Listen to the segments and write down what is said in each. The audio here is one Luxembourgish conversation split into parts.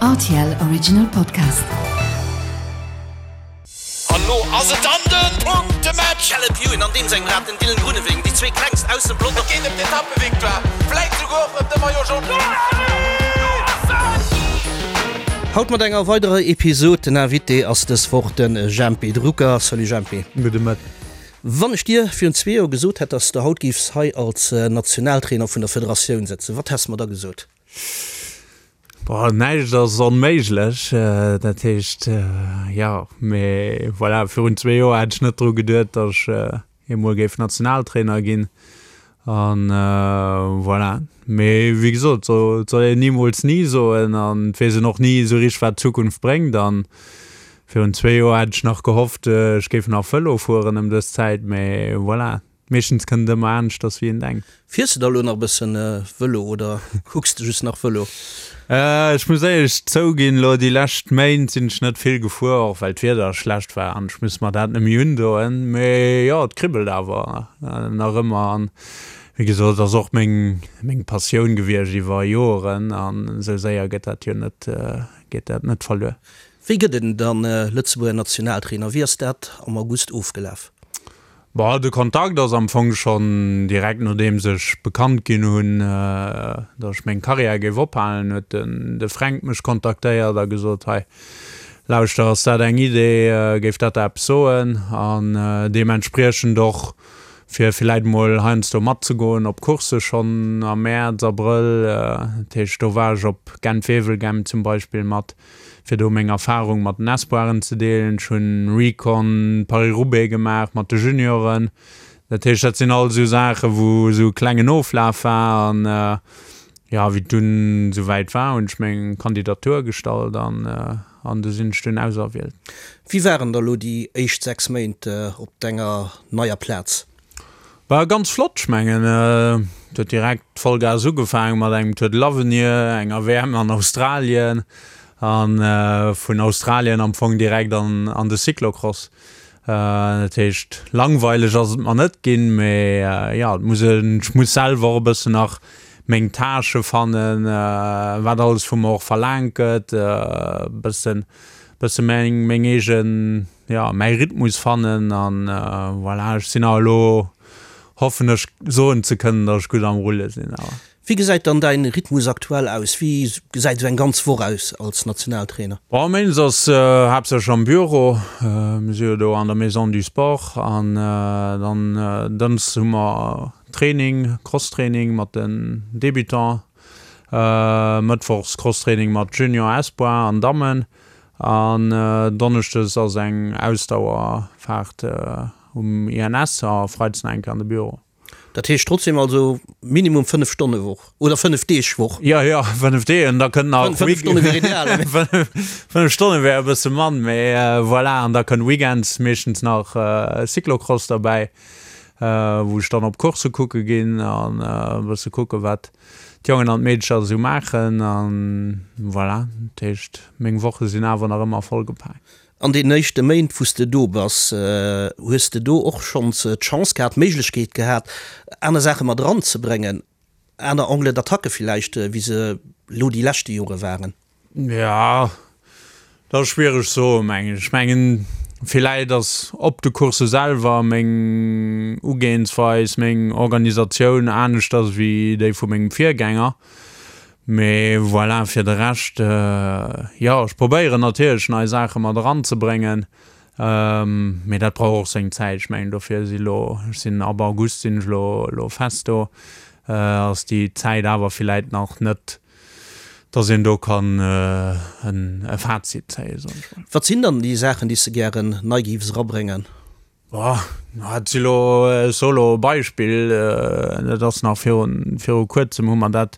Rtl Original Podcast. An lo ass et dann den Punktematch! Caleb Ewan an deem sengem Rad den Dylan Groenewegen, déi zwee klengst aus dem Pelotong. Et geet ëm d'Etappevictoire, vläit souguer och ëm de Maillot Jaune. Haut mat enger weiderer Episod. Den Invité ass dës Woch de Jempy Drucker. Salut Jempy. Gudde Mëtten. Wann ech dir virun zwee Joer gesot hätt, dass de haut géifs hei als Nationaltrainer vun der Federatioun sëtzen, wat häss de mer da gesot? Boah, näischt ass onméiglech. Dat heescht, jo, mee voilà, virun zwee Joer hätt ech net dru geduet, datt ech eemol géif Nationaltrainer ginn. An voilà. Mee wéi gesot, et soll een nimools ni soen an et weess een och ni esou richteg, wat d'Zukunft bréngt. An virun zwee Joer hätt ech nach gehofft, ech géif nach Vëlo fueren ëm dës Zäit, mee voilà, meeschtens kënnt et ëmmer aneschters wéi een denkt. Fiers de da elo nach e bëssen Vëlo oder kucks de just nach Vëlo? Ech muss éierlech zouginn, elo déi lescht Méint sinn ech net vill gefuer, och well d'Wieder schlecht war an ech muss mer dat net méi undoen. Mee jo, et kribbelt awer nach ëmmer an Wéi gesot, et ass och meng, meng Passioun gewiescht iwwer Joeren an esou séier gëtt dat jo net, geet dat net verluer. Wéi gëtt een dann Lëtzebuerger Nationaltrainer? Wéi ass dat am August ofgelaf? Bon, de Kontakt ass am Fong schonn direkt nodeems ech bekannt ginn hunn, datt ech meng Karriär géif ophalen, huet den de Fränk mech kontaktéiert a gesot, hei lauschter, ass dat eng Idee, géif dat der eppes soen? An deementspriechend och fir villäit mol heiansdo matzegoen op Coursse schonn am Mäerz, Abrëll. Dat heescht, do war ech op Gent-Wevelgem zum Beispill mat, fir do meng Erfarung mat den Espoiren ze deelen. Ech hunn Recon Paris-Roubaix gemaach mat de Junioren. Dat heescht, dat sinn all esou Saachen, wou esou e klengen Oflaf war. An jo, wéi et dunn esouwäit war, hunn ech meng Kandidatur gestallt an An du sinn ech dunn auserwielt. Wéi waren da lo déi éischt 6 Méint op denger neier Plaz? War ganz flott, ech mengen et huet direkt Vollgas ugefaangen mat engem Tour de l'Avenir, enger WM an Australien an vun Australien am Fong direkt an de Cyclocross. Dat heescht langweileg ass et mer net ginn, mee jo et muss een, ech muss selwer och e bëssen nach meng Tâche fannen, wat alles vu mer och verlaangt gëtt, e bëssen, bësse meng, meng eegen, jo mäi Rhythmus fannen an voilà. Ech sinn awer elo, hoffen ech soen ze kënnen, datt ech gutt am Rulle sinn awer. Wéi gesäit dann däin Rhythmus aktuell aus? Wéi gesäit esou eng ganz Woch aus als Nationaltrainer? Bon, méindes ass haaptsächlech am Büro. Mir si jo do an der Maison du Sport an dann dënns hu mer Training, Crosstraining mat den Débutants, mëttwochs Crosstraining mat Junior, Espoir an Dammen an donneschdes ass eng Ausdauerfaart um INS a freides nach eng Kéier an de Büro. Dat heescht trotzdem also minimum 5 Stonne Woch oder 5 Deeg Woch? Jo, jo, 5 Deeg an da kënnt nach. 5 Stonne wier ideal. 5 Stonne wär e bësse mann, mee voilà. An da kënnt weekends meeschtens nach Cyclocross derbäi, wou ech dann op Coursse kucke ginn an e bësse kucke wat d'Jongen an d'Meedecher esou maachen an voilà. Dat heescht, meng Woche sinn awer nach ëmmer vollgepaakt. An deenen éischte Méint, wou s de do bass, hues de do och schonns d'Chance gehat, d'Méiglechkeet gehat, aner Saache mat eranzebréngen, aner Angles d'attaque villäicht, wéi se elo déi leschte Jore waren? Jo, dat ass schwiereg ze soen, mengen ech. Ech mengen, villäit ass op de Coursse selwer meng Ugeeënsweis, meng Organisatioun aneschters wéi déi vu mengem Virgänger. Mee voilà, fir de Rescht, jo, ech probéieren natierlech nei Saache mat eranzebréngen, mee dat brauch och seng Zäit. Ech mengen, dofir si lo, ech sinn ab August sinn ech elo elo fest do, ass déi Zäit awer villäit nach net, dass een do kann e Fazit zéien, soen ech mol. Wat sinn dann déi Saachen, déi s de gären nei géifs erabréngen? Boah, dat si lo, ech soe lo e Beispill, dat ass nach virun, viru kuerzem hu mer dat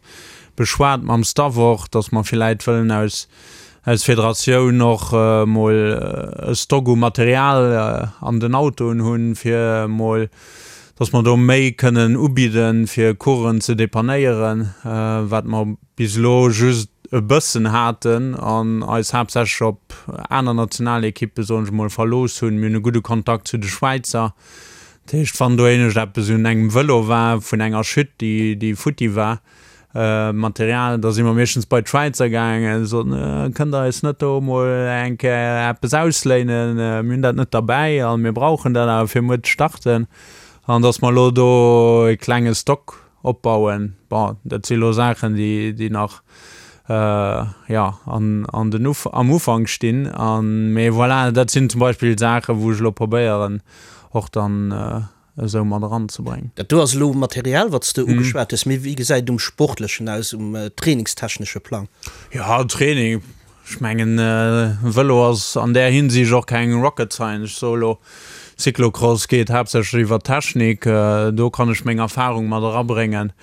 beschwat mam Staff och, datt mer villäit wëllen aus, aus Federatioun och mol e Stock u Material an den Autoen hunn, fir mol, datt mer do méi kënnen ubidden, fir Coursen ze depannéieren, wat mer bis elo just e bëssen haten an eis haaptsächlech op aner Nationalekippe, soen ech mol, verlooss hunn. Mir hunn e gudde Kontakt zu de Schwäizer. Dat heescht, wann do éinescht eppes un engem Vëlo war, vun enger Chute, déi, déi futti war, Material, da si mer meeschtens bei d'Schwäizer gaangen, soten, Kënnt der eis net do emol eng Kéier eppes ausléinen, mir hunn dat net derbäi a mir brauchen dat awer fir muer ze starten. An datt mer elo do e klenge Stock opbauen. Bon, dat si elo Saachen, déi, déi nach, jo, an, an den Uf, am Ufank stinn. An, mee voilà, dat sinn zum Beispill Saachen, wou ech elo probéieren och dann esou mat eranzebréngen. Dat do ass elo Material, wat s de ugeschwat hues, mee wéi gesäit et um Sportlechen aus, um trainingstechnesche Plang? Jo, Training, ech mengen, Vëlo ass an där Hinsicht och keng Rocket Science. Ech soe elo, Cyclocross geet haaptsächlech iwwer Technik, do kann ech meng Erfarung mat erabréngen.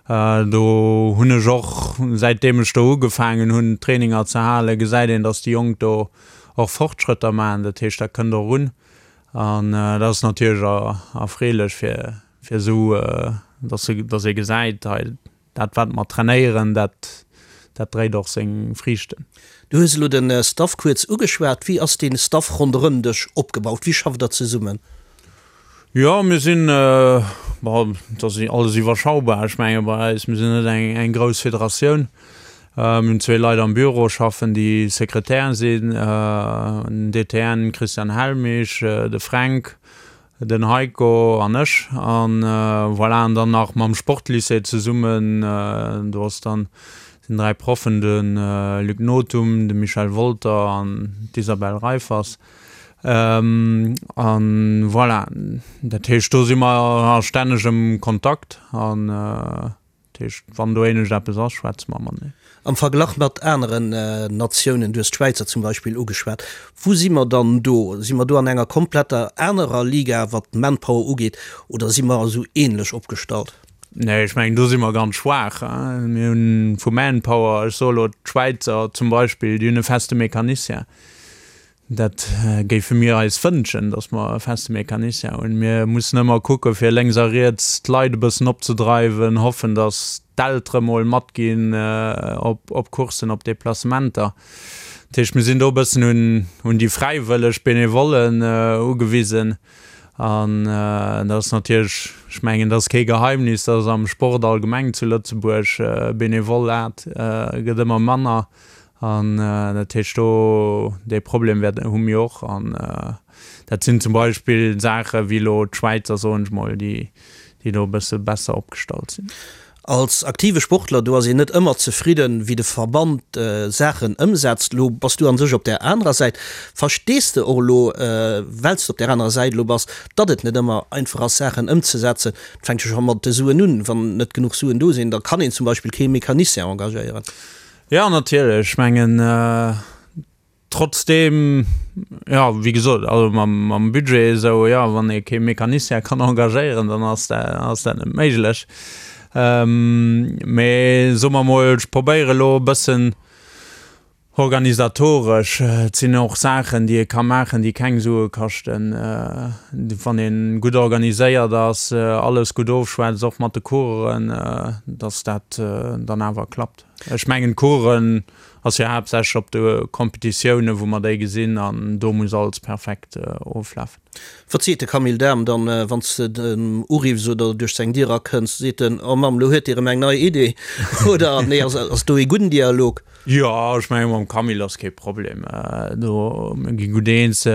Do hunn ech och, säitdeem ech do ugefaangen hunn, Traininger ze halen, gesäit een, datt déi Jonk do och Fortschrëtter maachen. Dat heescht, dat kënnt och un. An dat ass natierlech erfreelech fir fir esou, dass se, dass ee gesäit, hei dat wat mer trainéieren, dat dat dréit och seng Friichten. Du hues elo de Staff kuerz ugeschwat. Wéi ass dee Staff ronderëm dech opgebaut? Wéi schafft der zesummen? Jo, mir sinn, bon, et ass alles iwwerschaubar. Ech menge bei eis, mir sinn net eng eng grouss Federatioun. Mir hunn zwee Leit am Büro schaffen, déi Sekretär sinn, den DTN Christian Helmich, de Fränk, den Heiko an ech. An voilà, an dann nach mam Sportlycée zesummen, do ass dann, sinn 3 Proffen, de Luc Nothum, de Michel Wolter an d'Isabelle Reiffers. An voilà, dat heescht, do si mer a stännegem Kontakt an. Dat heescht, wann do éinescht eppes ass, schwätze mer mateneen. Am Verglach mat aneren Natiounen, du hues d'Schwäizer zum Beispill ugeschwat, wou si mer dann do? Si mer do an enger kompletter anerer Liga, wat d'Manpower ugeet, oder si mer esou ähnlech opgestallt? Nee, ech mengen, do si mer ganz schwaach. Mir hunn vu Manpower, ech soe elo d'Schwäizer zum Beispill, déi hunn e feste Mecanicien. Dat géife mir eis wënschen, datt mer e feste Mecanicien hunn. Mir mussen ëmmer kucke fir lénks a riets d'Leit e bëssen opzedreiwen, hoffen, datt d'Eltere mol matginn op Courssen, op Deplacementer. Dat heescht, mir sinn do e bëssen un déi fräiwëlleg Benevollen ugewisen. An dat ass natierlech, ech mengen, dat ass kee Geheimnis, datt am Sport allgemeng zu Lëtzebuerg Benevolat gëtt ëmmer manner. An dat heescht do, dee Problem wäert, hu mir och. An dat sinn zum Beispill Saache wéi elo d'Schwäizer, soen ech mol, déi, déi do e bësse besser opgestallt sinn. Als aktive Sportler, do ass een net ëmmer zefridden, wéi de Verband Saachen ëmsetzt. Elo bass du an sech op där anerer Säit. Verstees de och elo, well s de op där anerer Säit elo bass, datt et net ëmmer einfach ass, Saachen ëmzesetzen? Et fänkt jo scho mat de Suen un. Wann net genuch Suen do sinn, da kann een zum Beispill kee Mecanicien engagéieren. Jo, natierlech. Ech mengen, trotzdeem, jo, wéi gesot, also mam, mam Budget esou, jo, wann ee kee Mecanicien kann engagéieren, dann ass dat, ass dat net méiglech. Mee soe mer emol, ech probéiere elo e bëssen organisatoresch, et sinn och Saachen, déi ee ka maachen, déi keng Sue kaschten, wann ee gutt organiséiert ass, alles gutt ofschwätzt, och mat de Coureuren, dass dat dann awer klappt. Ech mengen d'Coursen ass jo haaptsächlech op de Competitiounen wou mer déi gesinn an do muss alles perfekt oflafen. Wat seet de Camille Dahm dann wann s de en uriffs oder duerch seng Dier erakënns? Seet en, oh Mamm, lo huet Dir erëm eng nei Idee? Oder nee, ass do ee gudden Dialog? Jo, ech mengen mam Camille ass kee Problem do, mir gi gutt eens.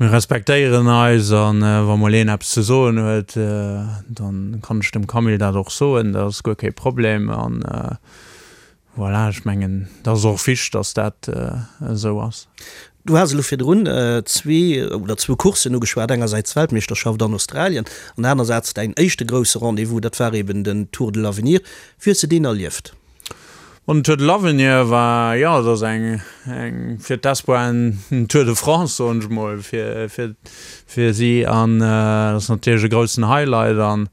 Mir respektéieren eis a wa mol een eppes ze soen huet, da kann ech dem Camille dat och soen, dat ass guer kee Problem. An voilà, ech mengen, dat ass och wichteg, datt dat esou ass. Du has elo virdrun zwee oder zwou Courssen ugeschwat, engersäits d'Weltmeeschterschaft an Australien an anersäits däin éischte grousse Rendez-vous, dat war eben den Tour de l'Avenir. Wéi hues de deen erlieft? Bon, den Tour de l'Avenir war, jo, et ass eng, eng fir d'Espoiren en Tour de France, soen ech mol, fir, fir, fir si. An dat ass natierlech e groussen Highlight an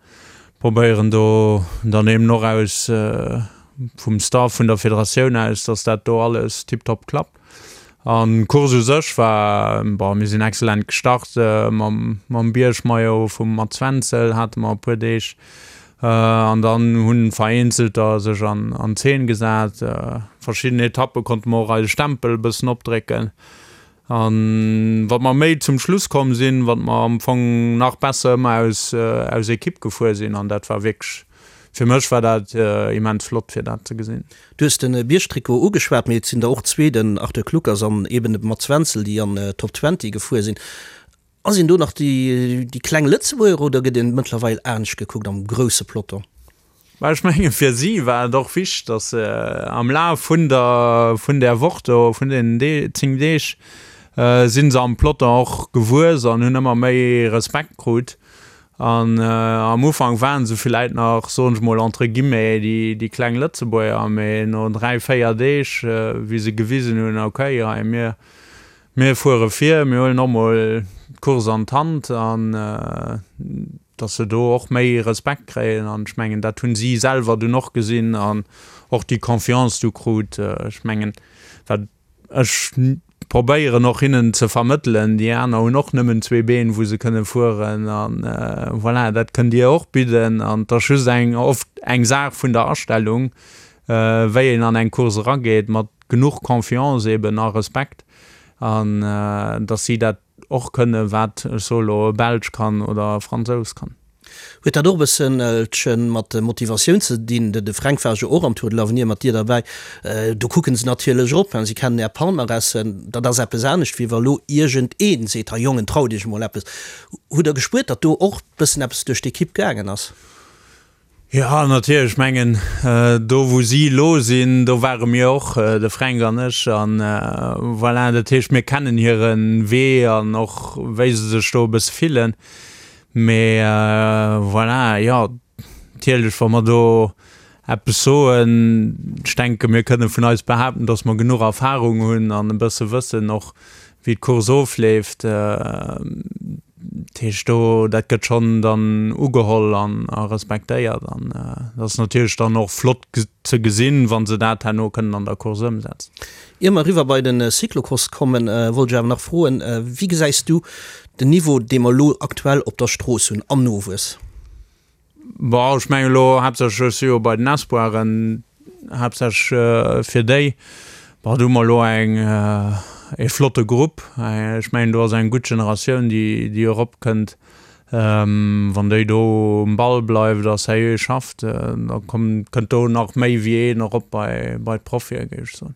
probéieren do dann eben och aus, vum Staff vun der Federatioun aus, dass dat do alles tiptop klappt. An d'Course u sech war, bon, mir sinn excellent gestart mam, mam Biergmaillot vum Mats Wenzel hate mer e puer Deeg. An dann hunn vereenzelter sech an Zeen gesat. Verschidden Etappe konnte mer och eise Stempel e bëssen opdrécken. An wat mer méi zum Schluss komm sinn, wat mer am Fong nach besser ëmmer aus aus Ekipp gefuer sinn. An dat war wierklech. Fir mech war dat immens flott fir dat ze gesinn. Du hues de Biergtrikot ugeschwat, mee et sinn der och zwee, den Arthur Kluckers an eben de Mats Wenzel, déi an d'Top 20 gefuer sinn. Ass een do nach déi kleng Lëtzebuerger oder gëtt een mëttlerweil anescht gekuckt am grousse Peloton? Mä ech mengen, fir si war et och wichteg, datt se am Laf vun der, vun där Woch do, vun deenen 10 Deeg, si se am Peloton och gewuess an hunn ëmmer méi Respekt krut. An am Ufank waren se villäit nach, soen ech mol entre guillemets, déi, déi kleng Lëtzebuerger, mee no 3, 4 Deeg, wéi se gewisen hunn, okay, hei mir, Mir fuere vir, mir huelen och mol d'Course an d'Hand an dass se do och méi Respekt kréien. An ech mengen, dat hunn si selwer dunn och gesinn an och déi Confiance du krut. Ech mengen, wat ech probéieren och hinnen ze vermëttelen, déi aner hunn och nëmmen zwee Been, wou se kënne fueren an voilà, dat kënnt Dir och bidden. An et ass just eng, oft eng Saach vun der Astellung, wéi een an eng Course erageet mat genuch Confiance eben a Respekt an dass si dat och kënne wat, ech soe lo, e Belsch kann oder e Fransous kann. Huet dat och e bësselche mat Motivatioun ze dinn? De Fränk war jo och am Tour de l'Avenir mat dir derbäi. Do kucken se natierlech erop, si kennen är Palmarèsen. Dat ass eppes anescht, wéi wa lo iergendee seet, Hei Jongen, traut iech emol eppes. Hutt der gespuert, datt do och bëssen eppes duerch d'Ekipp gaangen ass? Jo, natierlech. Ech mengen, do wou si elo sinn, do ware mir och, de Fränk an ech. An voilà, dat heescht, mir kennen hire Wee an och wéi se sech do e bësse fillen. Mee voilà, jo, natierlech, wa mer do eppes soen, ech denke mir kënne vun eis behaapten, datt mer genuch Erfarung hunn an e bësse wëssen och, wéi d'Course ofleeft. Dat heescht do, dat gëtt schonn dann ugeholl an a respektéiert an dat ass natierlech dann och flott ze gesinn, wa se dat herno kënnen an der Course ëmsetzen. Ier mer eriwwer bei de Cyclocross kommen, wollt ech awer nach froen, Wéi gesäis du den Niveau, dee mer elo aktuell op der Strooss hunn am Nowuess? Bon, ech mengen elo haaptsächlech, ech si jo bei den Espoiren, haaptsächlech fir déi. Bon, do hu mer elo eng, ee flotte Grupp. Ech mengen, do ass eng gutt Generatioun, déi, déi eropkënnt. Wann déi do um Ball bleift a seriö schafft, da kommt, kënnt do nach méi wéi een erop bei, bei d'Profie, géif ech soen.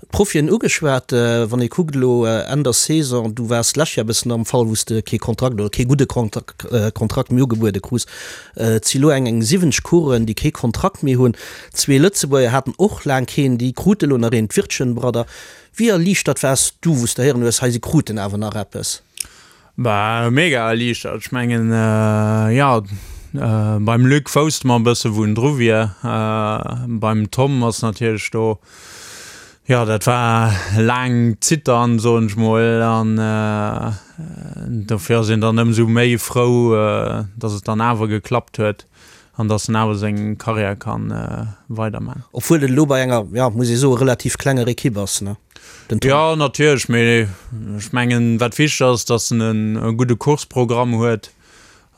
D'Profien ugeschwat. Wann ee kuckt elo Enn der Saison, du waars d'lescht Joer e bëssen am Fall, wou s de kee Kontrakt oder kee gudde Kontrakt méi ugebuede krus. Et si elo eng eng 70 Coureuren, déi kee Kontrakt méi hunn. Zwee Lëtzebuerger haten och laang keen, déi krute elo nach een, d'Wirtchen Brother. Wéi erliichtert waars du, wou s de héieren hues, hei si kruten awer nach eppes? Bah, mega erliichtert. Ech mengen, jo, beim Luc wousste mer e bësse wou en dru wier. Beim Tom ass natierlech do, jo, dat war laang Zittern, soen ech mol, an dofir ass een dann ëmsou méi frou, datt et dann awer geklappt huet an datt en awer seng Karriär ka weiderman. Obwuel et elo bei enger, jo, muss ee soen, relativ klenger Ekipp ass, ne? Den Tom. Jo, natierlech, mee ech mengen, wat wichteg ass, datt en e gudde Courseprogramm huet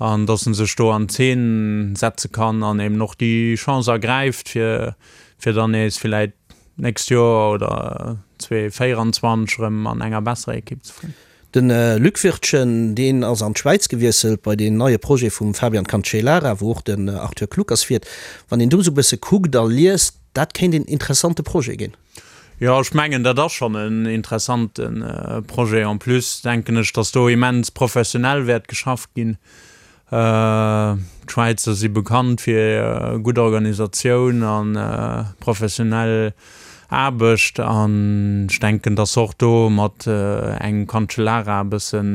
an datt en sech do an Zeen setze kann an eben och déi Chance ergräift, fir, fir dann nees villäit d'nächst Joer oder 2024 erëm an enger besserer Ekipp ze fueren. De Luc Wirtgen, deen ass an d'Schwäiz gewiesselt bei deen neie Projet vum Fabian Cancellara, wou och den Arthur Kluckers fiert. Wann een do esou e bësse kuckt a liest, dat kéint een interessante Projet ginn. Jo, ech mengen, dat ass schonn en interessante Projet. En plus denken ech, datt do immens professionell wäert geschafft ginn. D'Schwäizer si bekannt fir gutt Organisatioun a professionell Aarbecht an ech denken, datt se och do mat engem Cancellara e bëssen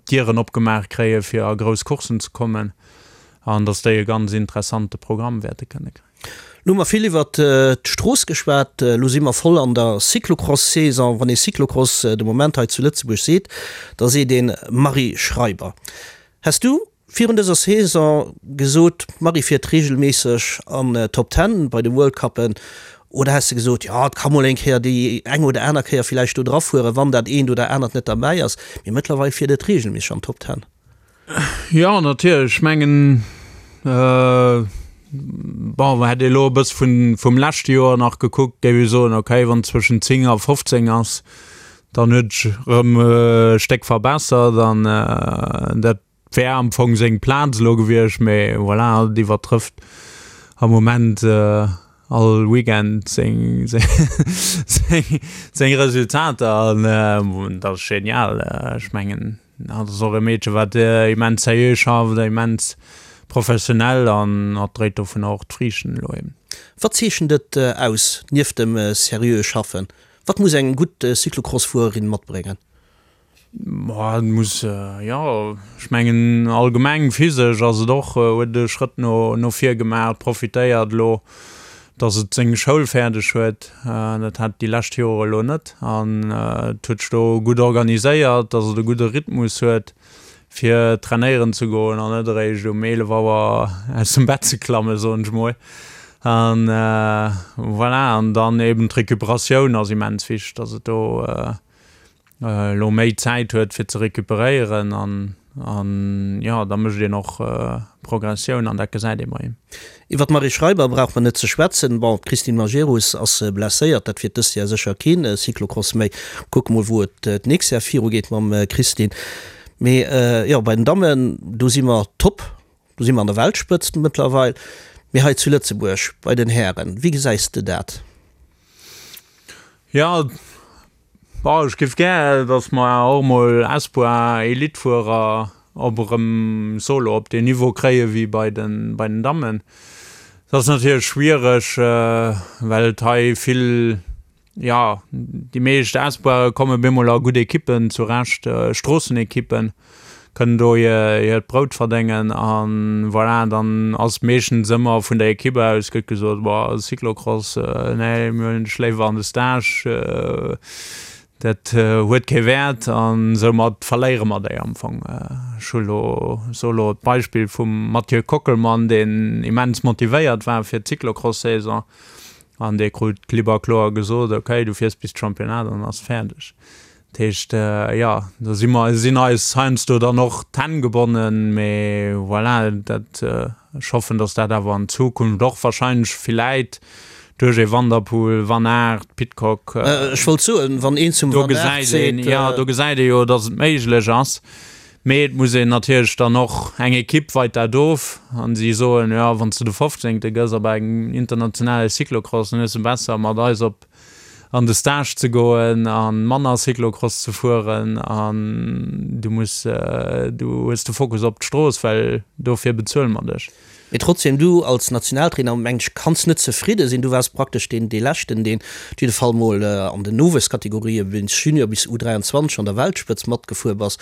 d'Dieren opgemaach kréie fir a grouss Courssen ze kommen an datt déi e ganz interessante Programm wäerte kënne kréien. Lo hu mer vill iwwert d'Strooss geschwat, elo si mer voll an der Cyclocross-Saison. Wann ee Cyclocross de Moment hei zu Lëtzebuerg seet, da seet een Marie Schreiber. Häss du virun dëser Saison gesot, d'Marie fiert reegelméisseg an d'Top Ten bei de World Cuppen, oder häss de gesot, jo et ka mol eng Kéier déi eng oder aner Kéier villäicht do drafueren, wann dat eent oder anert net derbäi ass, mee mëttlerweil fiert et reegelméisseg an d'Top Ten? Jo, natierlech. Ech mengen, bon, hätt ee elo e bësse vun, vum leschte Joer nach gekuckt, géif ech soen, okay, wann et zwëschen 10 a 15 ass, dann huet sech erëm e Stéck verbessert an dat. wär am Fong seng Plaz elo gewiescht, mee voilà, hatt iwwertrëfft am Moment all Weekend seng seng Resultater an dat ass genial. Ech mengen, hatt ass och e Meedche wat immens seriö schafft, immens professionell an hatt dréit dovunner och d'Friichten elo eben. Wat zeechent et aus, nieft dem seriöe Schaffen? Wat muss eng gutt Cyclocross-Fuererin matbréngen? Boah, et muss, jo, ech mengen allgemeng physesch ass et och, huet e Schrëtt no no vir gemaach, profitéiert elo, datt et seng Schoul fäerdeg huet. Dat hat et déi lescht Jore elo net an et huet sech do gutt organiséiert, datt et e gudde Rhythmus huet, fir trainéieren ze goen an net eréischt um 11 Auer aus dem Bett ze klammen, soen ech mol. An voilà, an dann eben d'Recuperatioun ass immens wichteg, datt et do elo méi Zäit huet fir ze recuperéieren an an jo da mécht een och Progressioun an dat gesäit ee bei him. Iwwer d'Marie Schreiber brauch mer net ze schwätzen. Bon, d'Christine Majerus ass blesséiert, dat wiert dëst Jahr sécher keen Cyclocross méi. Kucke mol wou et d'nächst Jahr viru geet mam Christine. Mee jo, bei den Dammen, do si mer top, do si mer an der Weltspëtzt mëttlerweil. Mee hei zu Lëtzebuerg bei den Hären, wéi gesäis de dat? Jo, Bon, ech géif gär, datt mer och emol Espoir Elite-Fuerer op erëm solo op deen Niveau kréie wéi bei den, bei den Dammen. Dat ass natierlech schwiereg, well et hei vill, jo, déi meescht Espoire komme bemol a gutt Ekippen zurecht, Stroossenekippen. kënnen do hiert Brout verdéngen an voilà, dann ass meeschtens ëmmer vun der Equipe aus gëtt gesot, boah Cyclocross, nee mir huelen dech léiwer an de Stage, dat huet kee Wäert an soumat verléiere mer déi am Fong. Ech hu lo, soe lo d'Beispill vum Mathieu Kockelmann, deen immens motivéiert war fir d'Cyclocross-Saison an dee krut klipp a kloer gesot, okay du fiers bis d'Championnat an ass fäerdeg. Dat heescht, jo, do si mer, sinn eis heiansdo dann och d'Hänn gebonnen, mee voilà, dat, ech hoffen, datt dat awer an Zukunft och wahrscheinlech villäit duerch ee Van der Poel, Van Aert, Pidcock, Ech wollt soen, wann een zum do Van Aert gesäit een, seet, jo, do gesäit ee jo, datt et méiglech ass. Mee et muss een natierlech dann och, eng Ekipp weit dat of an si soen, jo, wann s de de Fofzéngte gëss op engem internationale Cyclocross, dann hues de besser mat eis op an de Stage ze goen a manner Cyclocross ze fueren an du muss, du hues de Fokus op d'Strooss, well dofir bezuele mer dech. Mee trotzdem, du als Nationaltrainer, meng ech, kanns net zefridde sinn. Du waars praktesch deen, dee leschten, deen op jidde Fall mol an den Nowuesskategorië bis Junior bis U23 an der Weltspëtzt matgefuer bass.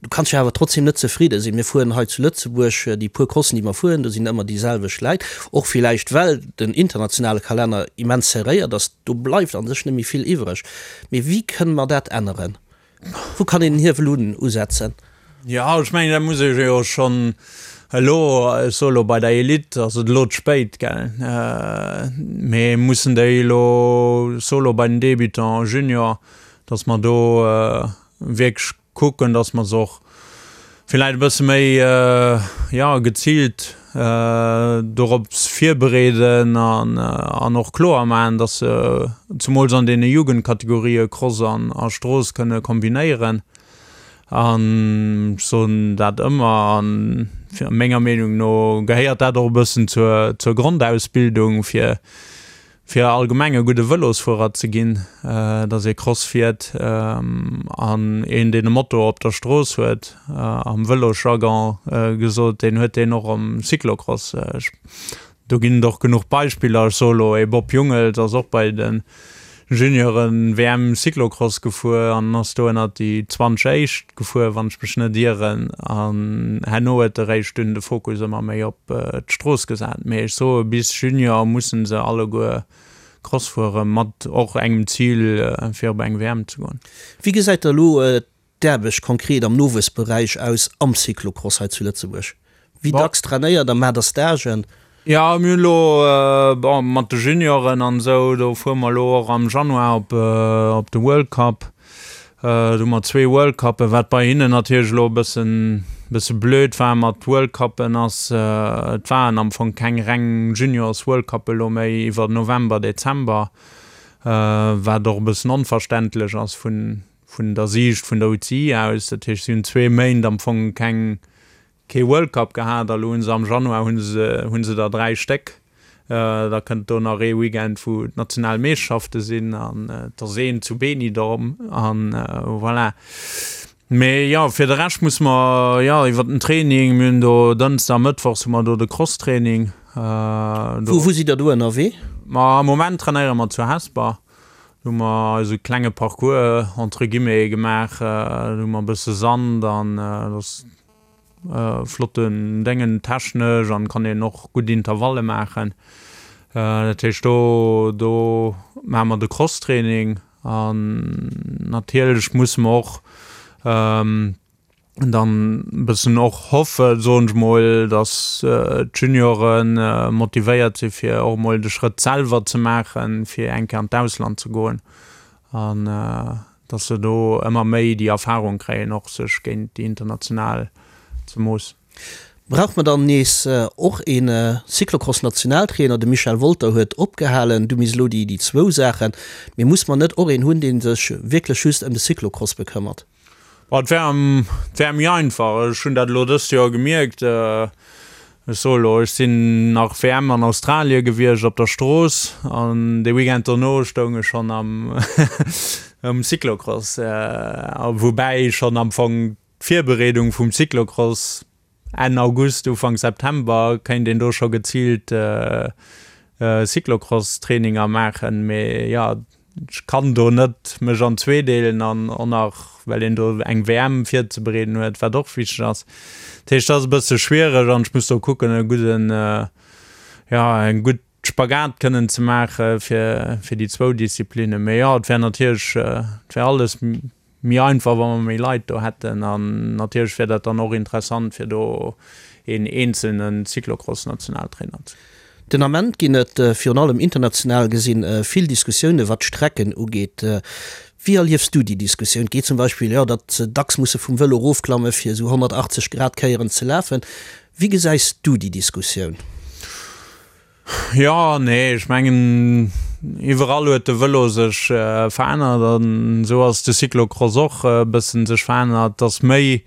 Du kanns jo awer trotzdem net zefridde sinn. Mir fueren hei zu Lëtzebuerg déi puer Crossen, déi mer fueren, do sinn ëmmer déi selwecht Läit. Och villäicht well den internationale Kalenner immens serréiert ass, do bleift a sech net méi vill iwwreg. Mee wéi kënne mer dat änneren? Wou kann een den Hiewel un usetzen? Jo, ech mengen, dat muss ech jo schonn elo, ech soe elo bei der Elite ass et elo ze spéit, gell, mee mussen déi elo, ech soe elo bei den Débutants, Junior, datt mer do wierklech kucken, dass mer se och villäicht e bësse méi, jo, geziilt dorops virbereeden an och kloer maachen, dass se zemools an deene Jugendkategorië Cross an a Strooss kënne kombinéieren. An ech soen dat ëmmer, a menger Meenung no gehéiert dat och e bëssen zur zur Grondausbildung, fir fir allgemeng e gudde Vëlosfuerer ze ginn, dass ee Cross fiert an een deen e Moto op der Strooss huet, am Vëlosjargon gesot, deen huet deen och am Cyclocross. Do ginn et och genuch Beispiller, ech soe lo ee Bob Jungels ass och bei de Junioren WM Cyclocross gefuer an ass do ënnert déi 20 éischt gefuer, wann ech mech net ieren, an herno huet e réischt dunn de Fokus ëmmer méi op d'Strooss gesat. Mee ech soe bis Junior mussen se alleguer Cross fuere mat och engem Zil fir op eng WM ze goen. Wéi gesäit da elo d'Aarbecht konkret am Nowuessberäich aus am Cyclocross hei zu Lëtzebuerg? Wéi dacks trainéiert der, maacht der Stagen? Jo, mir hunn elo, bon, mat de Junioren an esou, do fuere mer elo och am Januar op op de World Cup. Do hu mer zwee World Cuppen, wat bei hinnen natierlech elo e bëssen bësse blöd war mat World Cuppen ass, et waren am Fong keng reng Juniors World Cuppe elo méi iwwer November, Dezember, wat och e bëssen onverständlech ass vun vun der Siicht vun der UCI aus. Dat heescht, si hunn zwee Méint am Fong keng. Kee World Cup gehat a lo hunn se am Januar hunn se hunn se der 3 Stéck. Da kënnt do nach ee Weekend wou d'national Meeschterschafte sinn an et ass een zu Benidorm an voilà. Mee jo fir de Rescht musse mer jo iwwer den Training, mir hunn do Dënschde a Mëttwochs hu mer do de Crosstraining. Wou wou sidd der do ënnerwee? Ma am Moment trainéiere mer zu Hesper. Do hu mer eise klenge Parcours entre guillemets gemaach. Do hu mer e bësse Sand an et ass Flotten Déngen technesch an kann een och gutt Intervalle maachen. Dat heescht do do maache mer de Crosstraining an natierlech musse mer och dann e bëssen och hoffen, soen ech mol, datt d'Juniore motivéiert si fir och emol de Schrëtt selwer ze maachen, fir eng Kéier an d'Ausland ze goen an dass se do ëmmer méi déi Erfahrung kréien, och sech géint déi international ze moossen. Brauch mer dann nees och ee Cyclocross-Nationaltrainer? De Michel Wolter huet opgehalen, du misst elo déi zwou Saachen. Mee muss mer net och een hunn, dee sech wierklech just ëm de Cyclocross bekëmmert? Bon, et wär, et wär méi einfach. Ech hunn dat elo dëst Joer gemierkt. Ech soe elo, ech sinn nach WM an Australie gewiescht op der Strooss an de Weekend dono stoung ech schonn am um Cyclocross. Woubäi schonn am Fong d'Virbereedung vum Cyclocross Enn August, Ufank September kéint een do scho geziilt Cyclocross-Traininger maachen. Mee jo, ech kann do net mech an zweedeelen an och nach well een do eng WM virzebereeden huet, wat och wichteg ass. Dat heescht, dat ass e bësse schwiereg an ech muss do kucken e gudden, jo eng gutt Spagat kënnen ze maache fir fir déi zwou Disziplinnen. Mee jo, et wär natierlech, et wär alles méi einfach, wa mer méi Leit do hätten. An natierlech wär dat dann och interessant, fir do een eenzelne Cyclocross-Nationaltrainer ze. Den Ament ginn et, virun allem international gesinn, vill Diskussioune wat d'Strecken ugeet. Wéi erliefs du déi Diskussioun? Et geet zum Beispill, jo, datt se dacks musse vum Vëlo erofklamme fir esou 180 Grad Kéieren ze lafen. Wéi gesäis du déi Diskussioun? Jo, nee, ech mengen, iwwerall huet de Vëlo sech verännert an esou ass de Cyclocross och e bëssen sech verännert, dass méi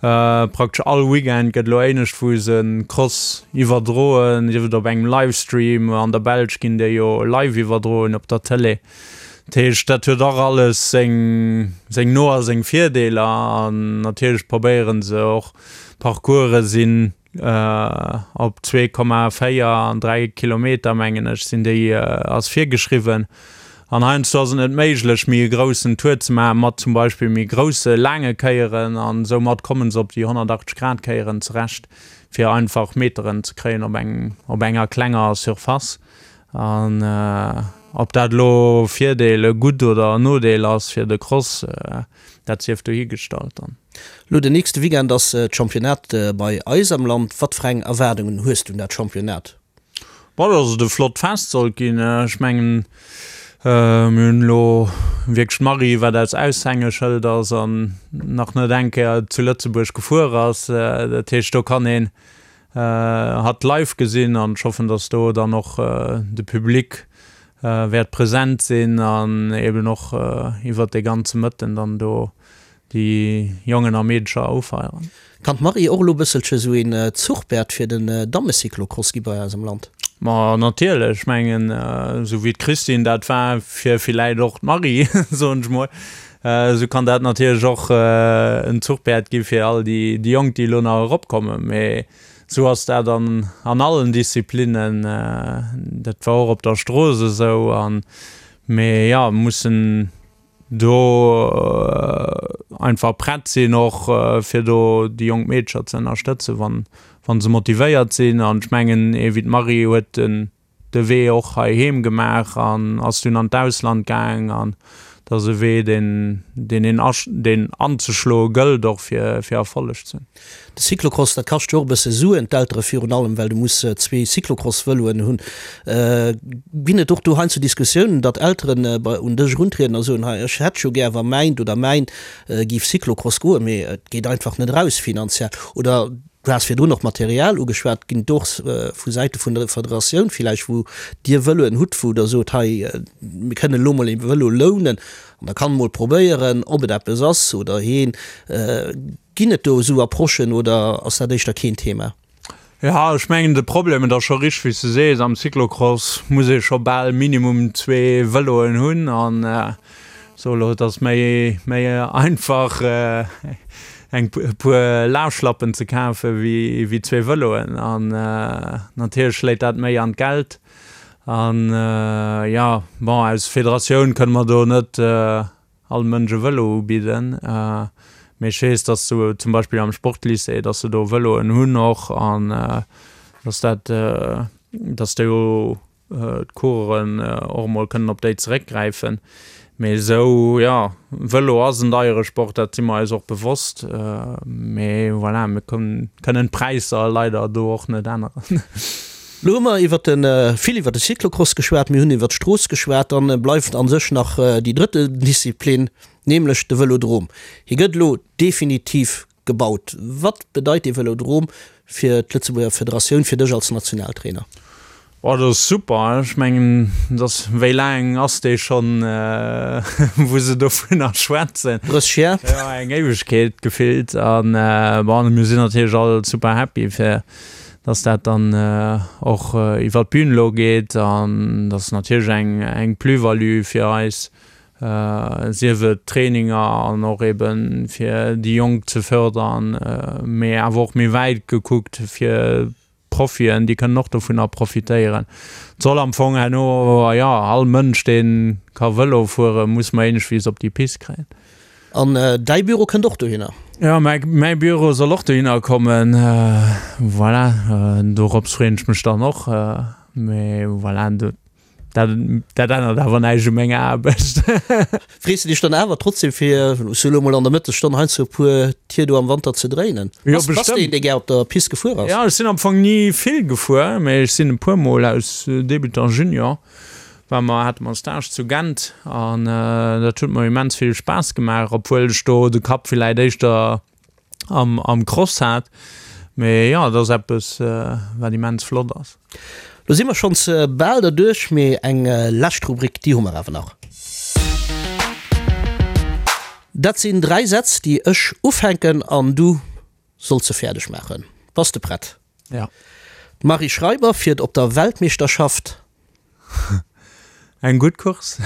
praktesch all Weekend gëtt elo éinescht wou se Cross iwwerdroen, sief et op engem Livestream, an der Belsch ginn déi jo live iwwerdroen op der Tëlee. Dat heescht, dat huet och alles seng seng No a seng Virdeeler an natierlech probéiere se och Parcourse sinn Op 2,4 an 3 Kilometer, mengen ech, sinn déi, ass virgeschriwwen. An heiansdo ass et net méiglech, méi e groussen Tour ze maachen, mat zum Beispill méi grousse laange Kéieren. An soumat komme se op déi 180 Grad Kéieren zerecht, fir einfach Meteren ze kréien op engem, op enger klenger Surface. An ob dat elo Virdeel, e Gutt oder en Nodeel ass fir de Cross, dat sief dohigestallt dann. Lo den nächste Weekend ass d'Championnat bei eis am Land. Wat fir eng Erwaardungen hues du un dat Championnat? Bon, dass et e flott Fest sollt ginn. Ech mengen, mir hunn elo wierklech d'Marie, wat eist Aushängeschëld ass an nach net eng Kéier zu Lëtzebuerg gefuer ass. Dat heescht, do kann een hatt live gesinn an ech hoffen, dass do dann och de Public wäert present sinn an eben och iwwert dee ganze Mëtten dann do déi Jongen a Meedecher ufeieren. Kann d'Marie och elo bësselche sou een Zuchpäerd fir den Dammecyclocross gi bei eis am Land? Ma natierlech, ech mengen esou wéi d'Christine dat war fir villäit och d'Marie, soen ech mol, esou kann dat natierlech och en Zuchpäerd gi fir all déi Jonk déi elo nach eropkommen. Mee esou ass dat an an allen Disziplinnen, dat war och op der Strooss esou an mee jo mussen do einfach prett sinn och fir do déi jonk Meedercher ze ënnerstëtzen, wann wa se motivéiert sinn. An ech mengen, ee wéi d'Marie huet den de Wee och heiheem gemaach an ass dunn an d'Ausland gaang an dat ass e Wee, deen deen een deen anzeschloe gëllt och fir fir Erfolleg ze hunn. De Cyclocross, dat kascht jo och e bësse Suen, d'Eltere virun allem, well du muss zwee Cyclocross-Vëloen hunn. Ginn et och do heiansdo Diskussiounen, datt Elteren un dech eruntrieden a soen, hei ech hätt jo gär, wa mäint oder mäin géif Cyclocross goen, mee et geet einfach net eraus finanziell? Oder du has virdrun och Material ugeschwat, ginn et och vu Säite vun der Federatioun villäicht, wou Dir Vëloen hutt, wou Der sot, hei mir kënnen elo mol ee Vëlo lounen? An da kann mol probéieren, ob et eppes ass oder heen. Ginn et do esou Approchen oder ass dat éischter keen Thema? Jo, ech mengen de Problem, et ass scho richteg wéi s de sees, am Cyclocross muss ee scho bal minimum zwee Vëloen hunn an so elo, et ass méi méi einfach eng e puer Lafschlappen ze kafe wéi wéi zwee Vëloen an natierlech schléit dat méi an d'Geld an jo, bon aus Federatioun kënne mer do net all Mënsch e Vëlo ubidden, mee ech weess, dass se zum Beispill am Sportlycée, dass se do Vëloen hunn och an dass dat, dass do d'Coureuren och emol kënnen op déi zeréckgräifen. Mee esou, jo, Vëlo ass en deiere Sport, dat si mer eis och bewosst, mee voilà, mir kënnen d'Präisser leider do och net änneren. Lo hu mer iwwer de, vill iwwer de Cyclocross geschwat, mir hunn iwwer d'Strooss geschwat, dann bleift a sech nach déi drëtte Disziplin, nämlech de Vëlodrom. Hie gëtt elo definitiv gebaut. Wat bedeit dee Vëlodrom fir d'Lëtzebuerger Federatioun, fir dech als Nationaltrainer? Oh, dat ass super. Ech mengen, dass, wéi laang ass dee schonn, wou se dovunner schwätzen? 30 Jar. Jo, eng Éiwegkeet gefillt. An bon, mir sinn natierlech all super happy fir dass dat dann och iwwert d'Bün elo geet an dat ass natierlech eng eng Plus-value fir eis, sief et Traininger an och ebe fir déi Jonk ze fördern, mee awer och méi wäit gekuckt fir d'Profien, déi kënnen och dovunner profitéieren. Et soll am Fong herno, jo, all Mënsch dee ka Vëlo fueren, muss mer iergendwéis op déi Pist kréien. An däi Büro kënnt och dohinner? Jo, mäi Büro soll och dohinner kommen. Voilà, dorops freeën ech mech dann och. Mee voilà, dat dat ännert awer näischt u menger Aarbecht. Frees de dech dann awer trotzdem fir sou elo mol an der Mëttesstonn heiansdo e puer Tier do am Wanter ze dréinen? Jo, bestemmt. Bass de een, dee gär op der Pist gefuer ass? Jo, ech sinn am Fong ni vill gefuer, mee ech sinn e puer mol aus Débutant, Junior war mer, hate mer Stage zu Gent an dat huet mer immens vill Spaass gemaach, obwuel ech do de Kapp villäit éischter am, am Cross hat. Mee jo, et ass eppes, wat immens flott ass. Lo si mer schonns bal derduerch, mee eng lescht Rubrik, déi hu mer awer nach. Dat sinn 3 Sätz, déi ech ufänken an du solls se fäerdeg maachen. Bass de prett? Ja. D'Marie Schreiber fiert op der Weltmeeschterschaft. Eng gutt Course.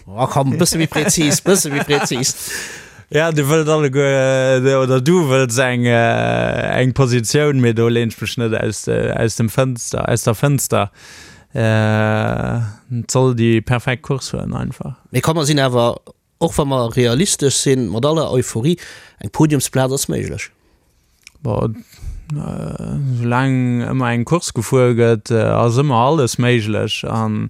Oh komm, bësse méi präzis, bësse méi präzis. Ja, dir wëllt alleguer, oder du wëlls eng, eng Positioun, mee do leen ech mech net aus, aus dem Fënster, aus der Fënster. Et soll déi perfekt Course fueren einfach. Mee komm, mer sinn awer Och wa mer realistesch sinn, mat aller Euphorie, eng Podiumsplaz ass méiglech. Bon, soulaang ëmmer eng Course gefuer gëtt, ass ëmmer alles méiglech. An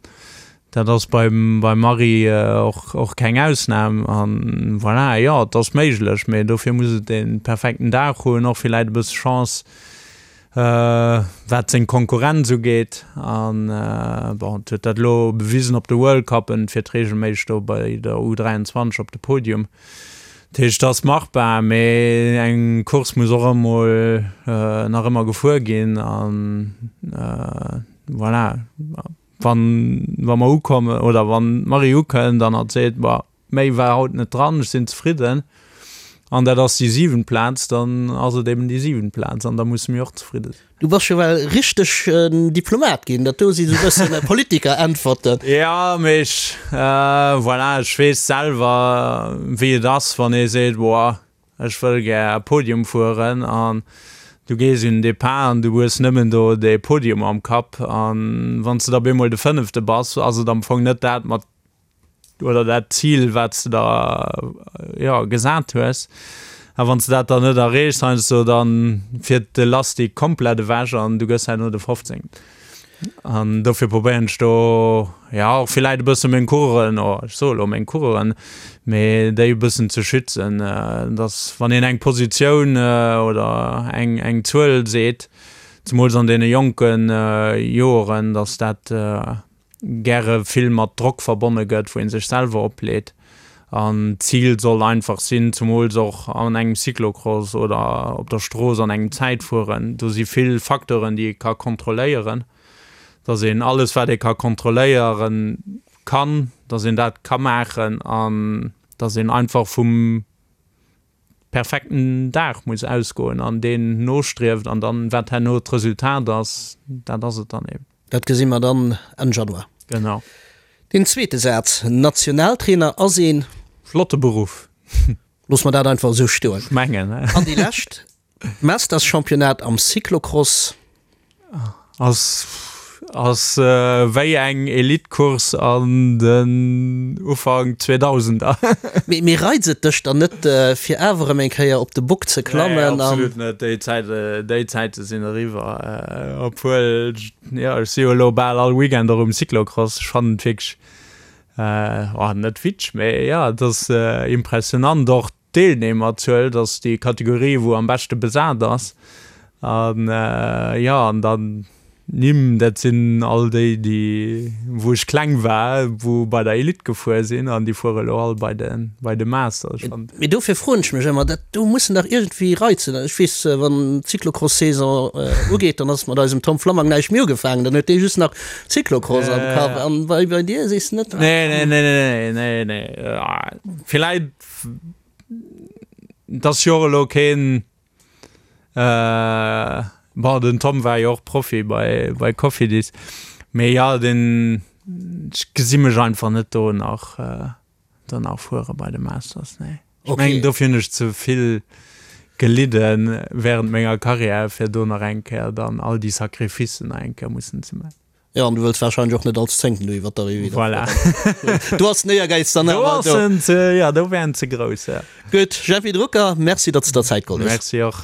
dat ass beim Marie och, och keng Ausnam. An voilà, jo, et ass méiglech, mee dofir muss et dee perfekten Dag hunn, och villäit e bësse Chance. Wat seng Konkurrenz ugeet, an bon, et huet dat elo bewisen op de World Cuppen, fiert reegelméisseg do bei der U23 op de Podium. Dat heescht, et ass machbar, mee eng Course muss och emol nach ëmmer gefuer ginn an voilà, wann wa mer ukommen oder wann d'Marie ukënnt an hatt seet, Bon, Méi war haut net dran, ech sinn zefridden an dat ass déi siwent Plaz, dann ass et eben déi siwent Plaz an da musse mir och zefridde sinn. Du bass scho well richteg en Diplomat ginn, dat do si sou bëssen Politiker-Äntwerten. Jo, mee ech, voilà, ech weess selwer wéi et ass, wann ee seet, boah, ech wëll gär Podium fueren an du gees un den Depart an du hues nëmmen do dee Podium am Kapp an wann s de da bemol de Fënnefte bass, ass et am Fong net dat mat oder dat Zil, wat s de der, jo, gesat hues. A wann s de dat dann net erreechs heiansdo, da fiert de Lastik komplett ewech an du gëss herno de 15. An dofir probéieren ech do, jo, och villäit e bësse meng Coureuren, oh, ech soe lo meng Coureuren, mee déi e bëssen ze schützen, dass wann een eng Positioun oder eng, eng Zuel seet, zemools an deene jonke Joeren, dass dat, gäre vill mat Drock verbonne gëtt, wou ee sech selwer opleet. An d'Zil soll einfach sinn, zumools och an engem Cyclocross oder op der Strooss an engem Zäitfueren, do si vill Facteuren, déi ee ka kontrolléieren, dass een alles, wat ee ka kontrolléieren kann, dass een dat ka maachen. An. Dass een einfach vum perfekten Dag muss ausgoen an deen nostrieft an dann, wat herno d'Resultat ass, dat ass et dann eben. Dat gesi mer dann Enn Januar. Genau. Deen zweete Saz, Nationaltrainer ass een. Flotte Beruff. Loosse mer dat einfach esou stoen. Ech mengen. An déi lescht, D'Masters-Championnat am Cyclocross. Ass ass wéi eng Elite-Course an den Ufank Zweedausender. Mee mee reizt et dech dann net fir awer erëm eng Kéier op de Bock ze klammen? Nee, absolut net. Déi Zäit déi Zäite sinn eriwwer. Obwuel, jo, ech si jo elo bal all Weekend och um Cyclocross. Ech fannen et wierklech, oh, net witzeg, mee jo, et ass impressionant och D'Deelnehmerzuel, dat ass déi Kategorie wou am beschte besat ass. An jo, an dann d'Nimm, dat sinn all déi, déi wou ech kleng war, wou bei der Elite gefuer sinn an déi fuere elo all bei de bei de Masters. Ech fannen. Mee dofir froen ech mech ëmmer, dat do mussen dach iergendwéi Reizen, ech weess, wann d'Cyclocross-Saison ugeet, dann ass mat eisem Tom Flammang näischt méi ugefaangen, dann huet dee just nach Cyclocross am Kapp. An bei bei dir sees de net? Nee, nee, nee, nee, nee, nee. Villäit Et ass jo och elo keen, bon den Tom war jo och Profi bei bei Cofidis, mee jo den, ech gesi mech einfach net do nach do nach fuere bei de Masters, nee. Ech mengen dofir hunn ech ze vill gelidde während menger Karriär fir do nach eng Kéier dann all déi Sacrificen nach eng Kéier mussen ze man. Jo, an du wëlls wahrscheinlech och net als Zéngten do iwwer d'Arrivée da Voilà. fueren. Do ass den Éiergäiz dann Do awer ass do. en ze, ja, do wär en ze grouss, ja. Gutt, Jeffy Drucker, Merci, datt s de der Zäit geholl hues. Merci och.